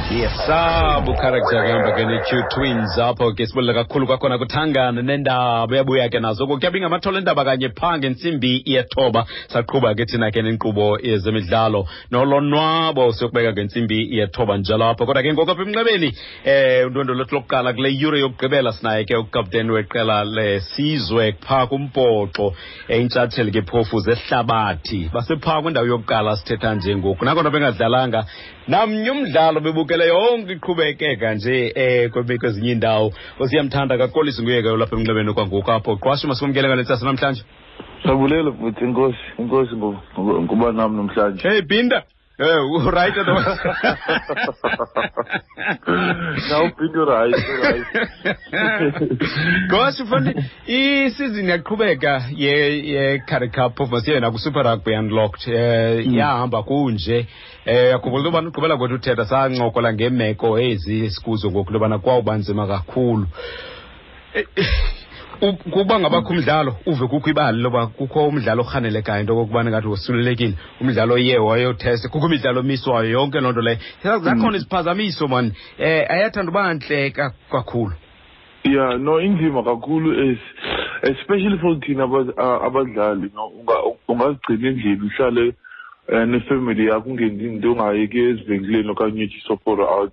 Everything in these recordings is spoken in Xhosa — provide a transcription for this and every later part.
Yes, character kuhamba ke ne-Q Twins apho ke sibulela kakhulu kwakhona kuthangana nendaba uyabuya ke nazo kuyabi ngamathole endaba kanye phaa ngentsimbi yethoba. Saqhuba ke thina ke nenkqubo yezemidlalo nolonwabo, siyokubeka ngentsimbi yethoba njalo apho. Kodwa ke ngoku apha emnxebeni undwendwe lwethu lokuqala kule yure yokugqibela sinaye ke ukapteni weqela lesizwe phaa kumbhoxo, intshatsheli ke phofu zehlabathi, basephaa kwindawo yokuqala sithetha nje ngoku, nakona bengadlalanga namnye umdlalo, bebukele yonke iqhubekeka nje kwezinye iindawo. Osiyamthanda kakolisi nguye ke olapha emnxebeni kwangoku apho. Qwashu, masikumkele ngale ntsasa namhlanje. Sabulela futhi, inkosi, inkosi ngokuba nam namhlanje. Hey Binda. Right otherwise. Now Binda right, right. Gosh, mfandi, isizini yaqhubeka ye Currie Cup, phofu masiye naku Super Rugby Unlocked. Yahamba kunje. Yakhumbula into yobana ugqibela kwethu uthetha sancokola ngeemeko ezi sikuzo ngoku, into yobana kwawuba nzima kakhulu. Kuba ngabakho umdlalo uve kukho ibali loba kukho umdlalo orhanelekayo into okokubana ngathi wosulelekile, umdlalo oye wayothesta, kukho imidlalo emiswayo, yonke loo nto leyo. Zakhona iziphazamiso mani, ayathanda uba ntle kakhulu. Yeah, no, inzima kakhulu, is especially for thina abadlali, no, ungazigcina endlini, uhlale nefamily yakho, ungenzi into, ungayeki ezivenkileni okanye uthi soporo out.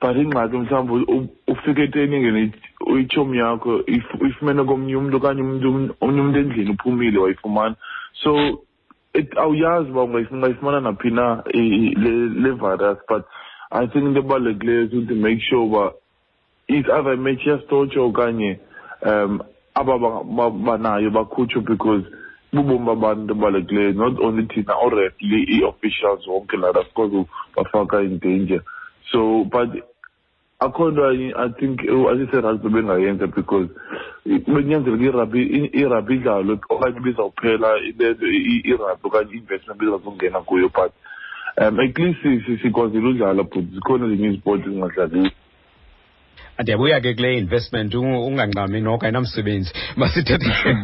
But ingxaki mhlawumbi ufike etraining, itshomi yakho uyifumene komnye umntu okanye omnye umntu endlini uphumile wayifumana. So awuyazi uba ungayifumana naphi na le virus. But I think into ebalulekileyo is to make sure uba it's either match iyastotshwa okanye aba banayo bakhutshwe, because bubomi babantu into ebalulekileyo, not only thina, oo-referee, ii-officials, wonke laa nto asikwazi bafaka in danger. So but akho nto I think asise-rugby bengayenza, because benyanzeleka irugby idlalwe okanye ibizawuphela irugby okanye i-investment bezazongena kuyo. But at least sikwazile udlala, but zikhona ezinye izipoti ezingadlaliyo. Ndiyabuya ke kule investment, ungangxami noko ayinamsebenzi. Masithethe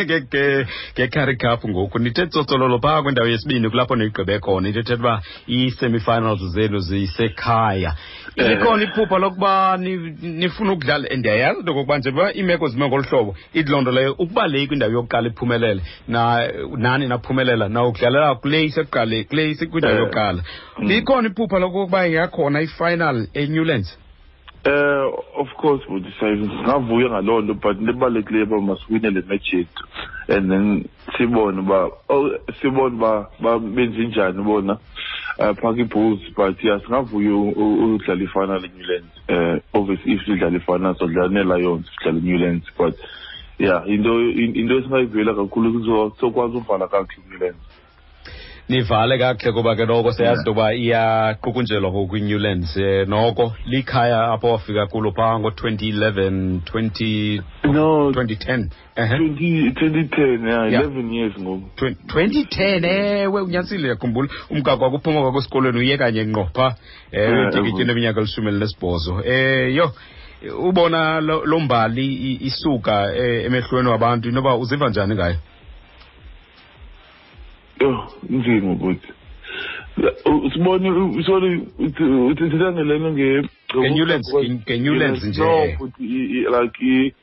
nge-Currie Cup ngoku. Nithe tsotsololo phaa kwindawo yesibini, kulapho niyigqibe khona, into ethetha uba ii-semifinals zenu zisekhaya. Likhona iphupha lokuba nifuna ukudlala? Ndiyayazi into okokuba nje uba iimeko zime ngolu hlobo, ithi loo nto leyo ukuba le kwindawo yokuqala iphumelele, nani naphumelela nawukudlalela kule isekuqale, kule isekwindawo yokuqala. Likhona iphupha lokokuba ingakhona i-final eNewlands? Of course, bhuti, singavuya ngaloo nto, but into ebalulekileyo uba masiwine le match yethu and then sibone uba, oh, sibone uba benze njani bona phaa kwi-Bulls. But yeah, singavuya udlala i-final eNewlands. Obviously if sidlala i-final sodlala nee-Lions, sidlala eNewlands, but yeah, into esingayivuyela kakhulu sokwazi uvala kakuhle eNewlands. Nivale kakuhle, kuba ke noko siyazi into yoba iyaqukunjelwa ngoku iNewlands. Noko likhaya apho wafika kulo phaa ngo-2011, 20 No, 2010. 2010, yeah, 11 years ngoku. 2010, ewe, unyanisile, yakhumbula umgaqo wakuphuma kwakho esikolweni uye kanye ngqo phaa. Utikiti neminyaka 18. Yho, ubona lo mbali isuka emehlweni wabantu, inoba uziva njani ngayo? Yho, inzima bhuti. Sibone, sorry, uthetha ngelento nge Nge-Newlands, nge-Newlands nje. No, bhuti, like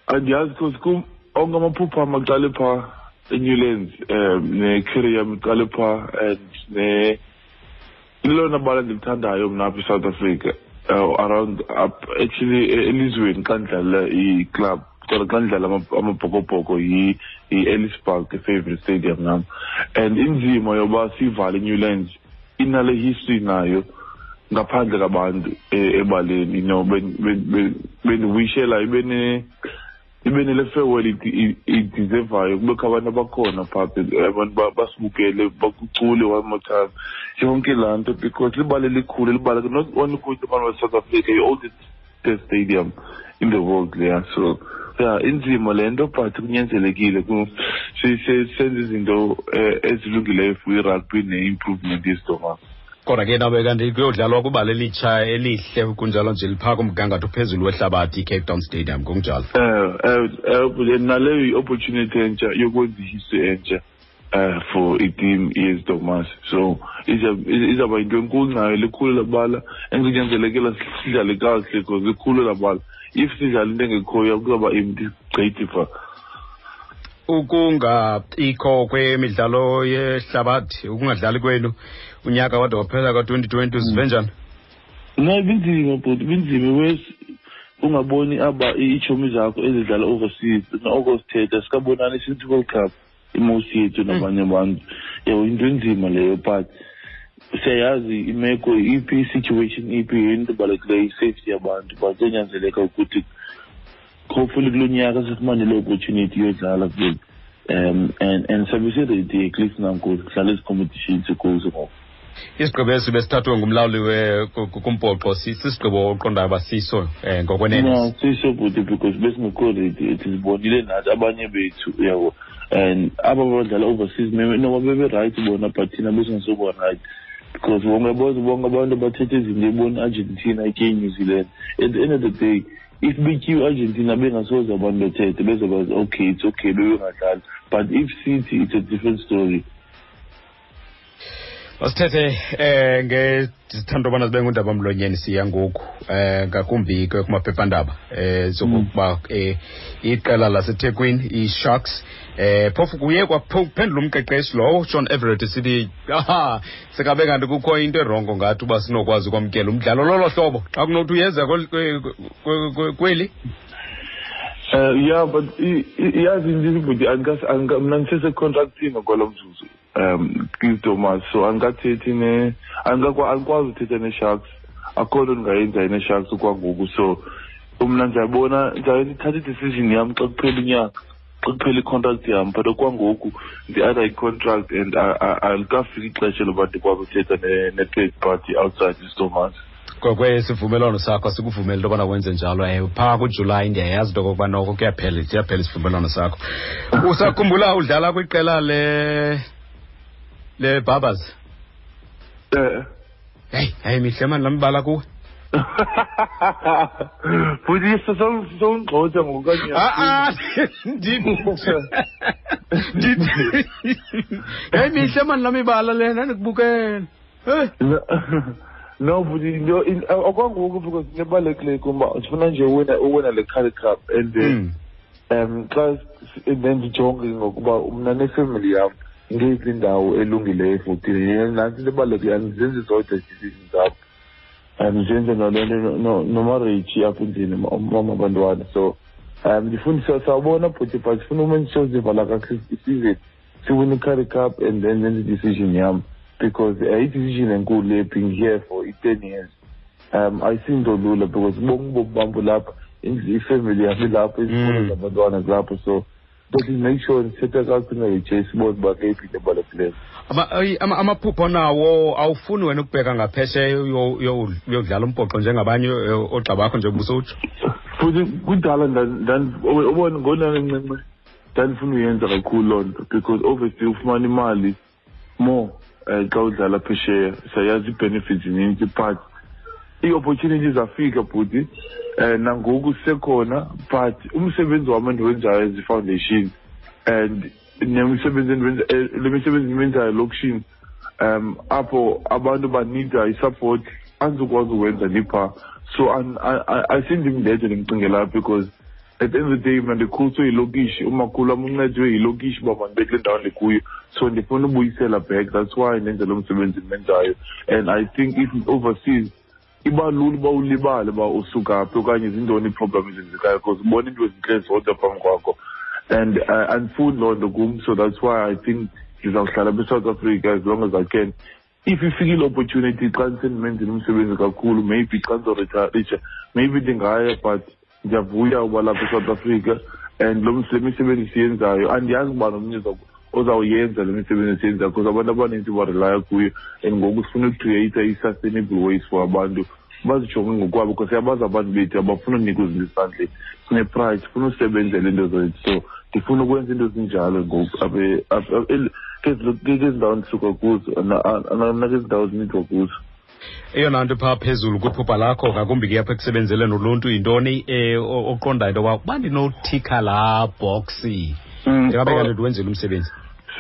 andiyazi, because kum onke amaphupha am aqale phaa eNewlands, ne-career yam iqale phaa, and ne lelona bala ndilithandayo mna apha eSouth Africa, around up actually elizweni xa ndidlala i-club, kodwa xa ndidlala amabhokobhoko yi-Ellis Park, i-favorite stadium nam. And inzima yoba sivale iNewlands inale history nayo ngaphandle kabantu ebaleni, bendiwishela ibe nele farewell ideservayo, kubekho abantu abakhona phaa, abantu basibukele, bakucule one more time, yonke laa nto, because libala elikhulu, libala not only kuthi abantu baseSouth Africa, i-oldest stadium in the world leya. So yeah, inzima le nto, but kunyanzelekile senze izinto ezilungileyo for i-rugby ne-improvement yesidomama. Kodwa ke nabe kanti kuyodlalwa kwibala elitsha elihle kunjalo nje, liphaa kumgangatho ophezulu wehlabathi iCape Town Stadium ngokunjalo. Naleyo i-opportunity entsha yokwenza ihistory entsha. For iteam yeStormers, so izawuba yinto enkulu nayo, likhulu labala, and kunyanzelekela sidlale kakuhle because likhulu labala. If sidlala into engekhoyo, kuzawuba empty gqithi phaa. Ukungabikho kwemidlalo yehlabathi, ukungadlali kwenu unyaka wade waphela ka-2020, uzive njani? No, ibinzima bhuti, ibinzima wes ungaboni aba iitshomi zakho ezidlala overseas, noko sithetha sikabonani since World Cup, imosi yethu nabanye abantu, yabo, into enzima leyo. But siyayazi imeko iphi, i-situation iphi, yinto ebalulekileyo i-safety yabantu, but kuyanyanzeleka ukuthi hopefully kulo nyaka sifumane le opportunity yodlala kule and sabe siready at least nangoku kudlala ezi competitions sikuzo ngoku. Isigqibo esi besithathwe ngumlawuli kumbhoxo sisigqibo oqondayo uba siso ngokwenene? No, siso bhuti, because besingekho ready, sizibonile nathi abanye bethu, uyabo, and aba badlala overseas noba bebe-right bona, but thina besingasoba right because bonke bonke bonke abantu bathetha izinto, ebona i-Argentina itye New Zealand. At the end of the day, if betyiwe Argentina, bengasoze abantu bethethe, bezobazi okay, it's okay, bebengadlali, but if sithi, it's a different story. Masithethe ngezithando bana zibe ngundaba mlonyeni siya ngoku ngakumbi ke kumaphephandaba zokuba iqela laseThekwini iSharks, phofu kuye kwaphendula umqeqeshi lowo Sean Everett sithi aha, sekabe kanti kukho into erongo ngathi uba sinokwazi ukwamkela umdlalo lolo hlobo xa kunothi uyeza kweli. Yeah, but yazi into, bhuti, mna ndisese-contractini kwalo mzuzu kwiStormers, so andikathethi ne andikwazi uthetha ne-Sharks, akho nto ndingayenza ne-Sharks kwangoku. So mna ndiyabona ndithatha i-decision yam xa kuphela unyaka, xa kuphela i-contract yam, but okwangoku ndi-under i-contract and alikafiki ixesha loba ndikwazi uthetha ne-third party outside iStormers. Ngokwesivumelwano sakho sikuvumela into yobana wenze njalo. Phaa kuJulayi ndiyayazi into okokuba noko kuyaphela, siyaphela isivumelwano sakho. Usakhumbula udlala kwiqela le Barbers? Eh. Heyi, hayi, mihle mani laa mibala kuwe. Futhi sowungxotha ngokanye. Ah, ah, heyi, mihle mani laa mibala lena, ndikubukele. Hey. No, but into okwangoku, because into ebalulekileyo kum uba ndifuna nje uwina le Currie Cup and then xa and then ndijonge ngokuba mna nefemily yam ngeyiphi indawo elungileyo for thina. Nantsi into ebalulekileyo, andizenzi zodwa ii-decisions zam, ndizenze nale nto nomarriage apha endlini, umama abantwana. So ndifuna sawubona bhuti, but ndifuna uma ndisozivala kakuhle isizini, siwine i-Currie Cup and then nenze i-decision yam, because i-decision enkulu le, being here for i-10 years, ayisinto lula because bonke ubomi bam bulapha, ifemily yam ilapha, izikolo zabantwana zilapha, so but make sure ndithetha kakuhle noJ, sibone uba ngeyiphi into ebalulekileyo. Amaphupho nawo, awufuni wena ukubheka ngaphesheya uyodlala umbhoxo njengabanye oogxa bakho, njengoba usowutsho? Futhi kudala ubona ngonancinci ndandifuna uyenza kakhulu loo nto, because obviously ufumana imali more xa udlala phesheya, siyayazi ii-benefits zininzi, but ii-opportunities zafika bhuti, nangoku sisekhona, but umsebenzi wam endiwenzayo as i-foundation and nemisebenzi endiwenza, le misebenzi endiwenzayo elokishini, apho abantu banida i-support, andizukwazi uwenza ndiphaa. So ayisindim ndedwa ndimcingelayo, because at the end of the day mna ndikhuliswe yilokishi, umakhulu wam uncedwe yilokishi uba mandibe kule ndawo ndikuyo, so ndifuna ubuyisela back. That's why ndenza lo msebenzi ndimenzayo, and I think if overseas iba lula uba ulibale uba usuka phi okanye zintoni ii-problem ezenzekayo, because ubona iinto ezintle zodwa phambi kwakho, and andifuni loo nto kum. So that's why I think ndizawuhlala apha eSouth Africa as long as I can. If ifikile opportunity xa ndisendimenzile umsebenzi kakhulu, maybe xa ndizoritarisha, maybe ndingaya, but ndiyavuya uba lapha eSouth Africa and le misebenzi siyenzayo, andiyazi uba nomnye ozawuyenza le misebenzi siyenzayo, because abantu abanintsi barelaya kuyo, and ngoku sifuna ucreate i-sustainable ways for abantu bazijonge ngokwabo, because siyabazi abantu bethu abafuna unikwa izinto esandleni, sine-pride, sifuna usebenzela into zethu. So ndifuna ukwenza into ezinjalo ngoku kwezi ndawo ndisuka kuzo nakezi ndawo zinidwa kuzo. Eyona nto phaa phezulu kwiphupha lakho, ngakumbi ke apha ekusebenzeleni uluntu, yintoni oqondayo into yoba uba ndinothikha laa boxi, ndingabe kanti ndiwenzile umsebenzi?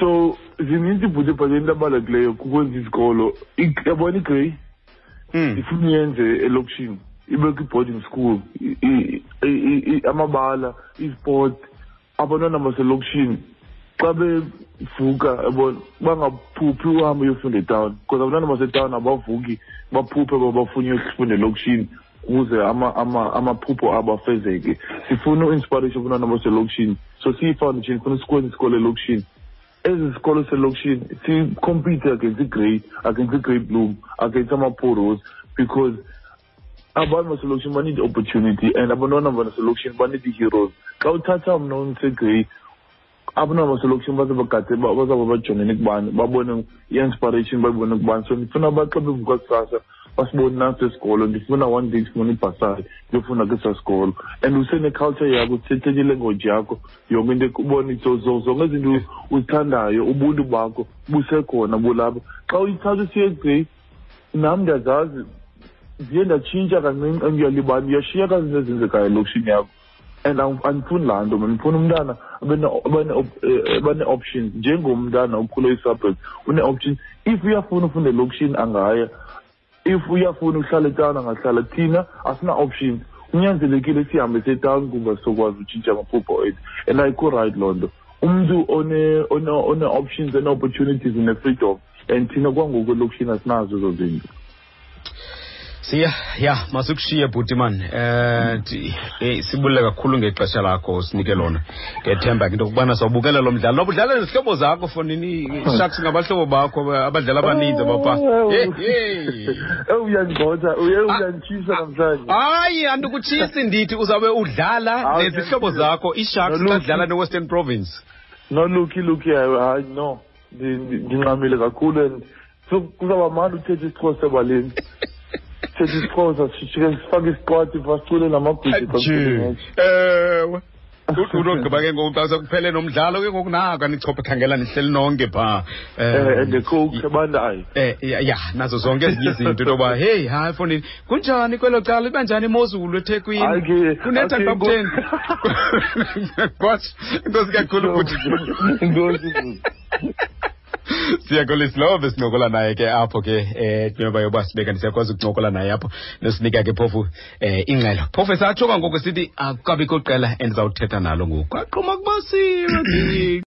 So zininzi ibhuti, but into abalulekileyo kukwenza izikolo. Yabona iGrey, ifuna uyenze elokishini, ibe kwi-boarding school, amabala, isport, abantwana baselokishini xa bevuka, yabona, bangaphuphi uhambe uyofunda etawuni, because abantwana basetawuni abavuki baphuphe uba bafuna uyofunda elokishini ukuze amaphupho abo afezeke. Sifuna u-inspiration abantwana baselokishini, so siyi-foundation funa sikwenze isikolo elokishini. Ezi sikolo selokishini si-compete against iGrey, against iGrey Bloom, against ama-Poros, because abantu baselokishini ba-need opportunity and abantwana baselokishini ba-need i-heroes. Xa uthatha mna undiseGrey, abantwana baselokishini baze bagade, bazawube bajongene kubani, babone i-inspiration, bayibone kubani. So ndifuna uba xa bevuka kusasa basibone nasi esikolo. Ndifuna one day sifuna ibhasari ndiyofunda kwesaa sikolo, and usene-culture yakho, uthethe ilanguage yakho, yonke into ubone zonke izinto uzithandayo, ubuntu bakho busekhona bulapha. Xa uyithatha usiye eGrey, nam ndiyazazi ndiye ndatshintsha kancinci and uyalibala, uyashiyeka izinto ezenzekayo elokishini yakho, and andifuni laa nto mna. Ndifuna umntana abe nee-options njengomntana okhule ii-suburbs, une-options. If uyafuna ufunda elokishini angaya, if uyafuna uhlala etawuni angahlala. Thina asina-option, kunyanzelekile sihambe setawuni kuba sizokwazi utshintsha amaphupho ethu, and ayikho right loo nto. Umntu one-options, one-opportunities, une-freedom, and thina kwangoku elokishini asinazo ezo zinto. Siya ya masikushiye bhuti man. Sibulele kakhulu ngexesha lakho usinike lona. Ngethemba ke into yokubana sawubukela lo mdlalo, noba udlala nezihlobo zakho fonini, Sharks ngabahlobo bakho, abadlali abaninzi abapha. Hey, hey. Uyangigxotha, uyanditshisa namhlanje. Hayi, andikutshisi, ndithi uzawube udlala nezihlobo zakho, iSharks, xa Noluki. dlala neWestern Province. No, Lucky, Lucky, hayi no, ndinqamile kakhulu and so kuzawuba mandi uthetha isiXhosa ebaleni, thetha isiXhosa, sifike sifake isiqwathi, basicule namagwijo xa Nje. kuphele match. Ewe, unogqiba ke ngoku xa sekuphele nomdlalo ke ngoku, nako anichophe, khangela nihleli nonke phaa. And the coke ebandayo. Ya, nazo zonke ezinye izinto, into yoba heyi, hayi fondini, kunjani kwelo cala, iba njani imozulu eThekwini? Hayi ke, Kunetha hayi ke, xa kutheni? Kwatsho, enkosi kakhulu bhuti. Enkosi, bhuti. Siyakolisa lowo besincokola naye ke apho ke, njengoba yoba sibeka siyakwazi ukuncokola naye apho, nosinika ke phofu ingxelo. Phofu esatsho kwangoku sithi akukabikho qela endizawuthetha nalo ngoku. Kwaqhuma kubasiwe.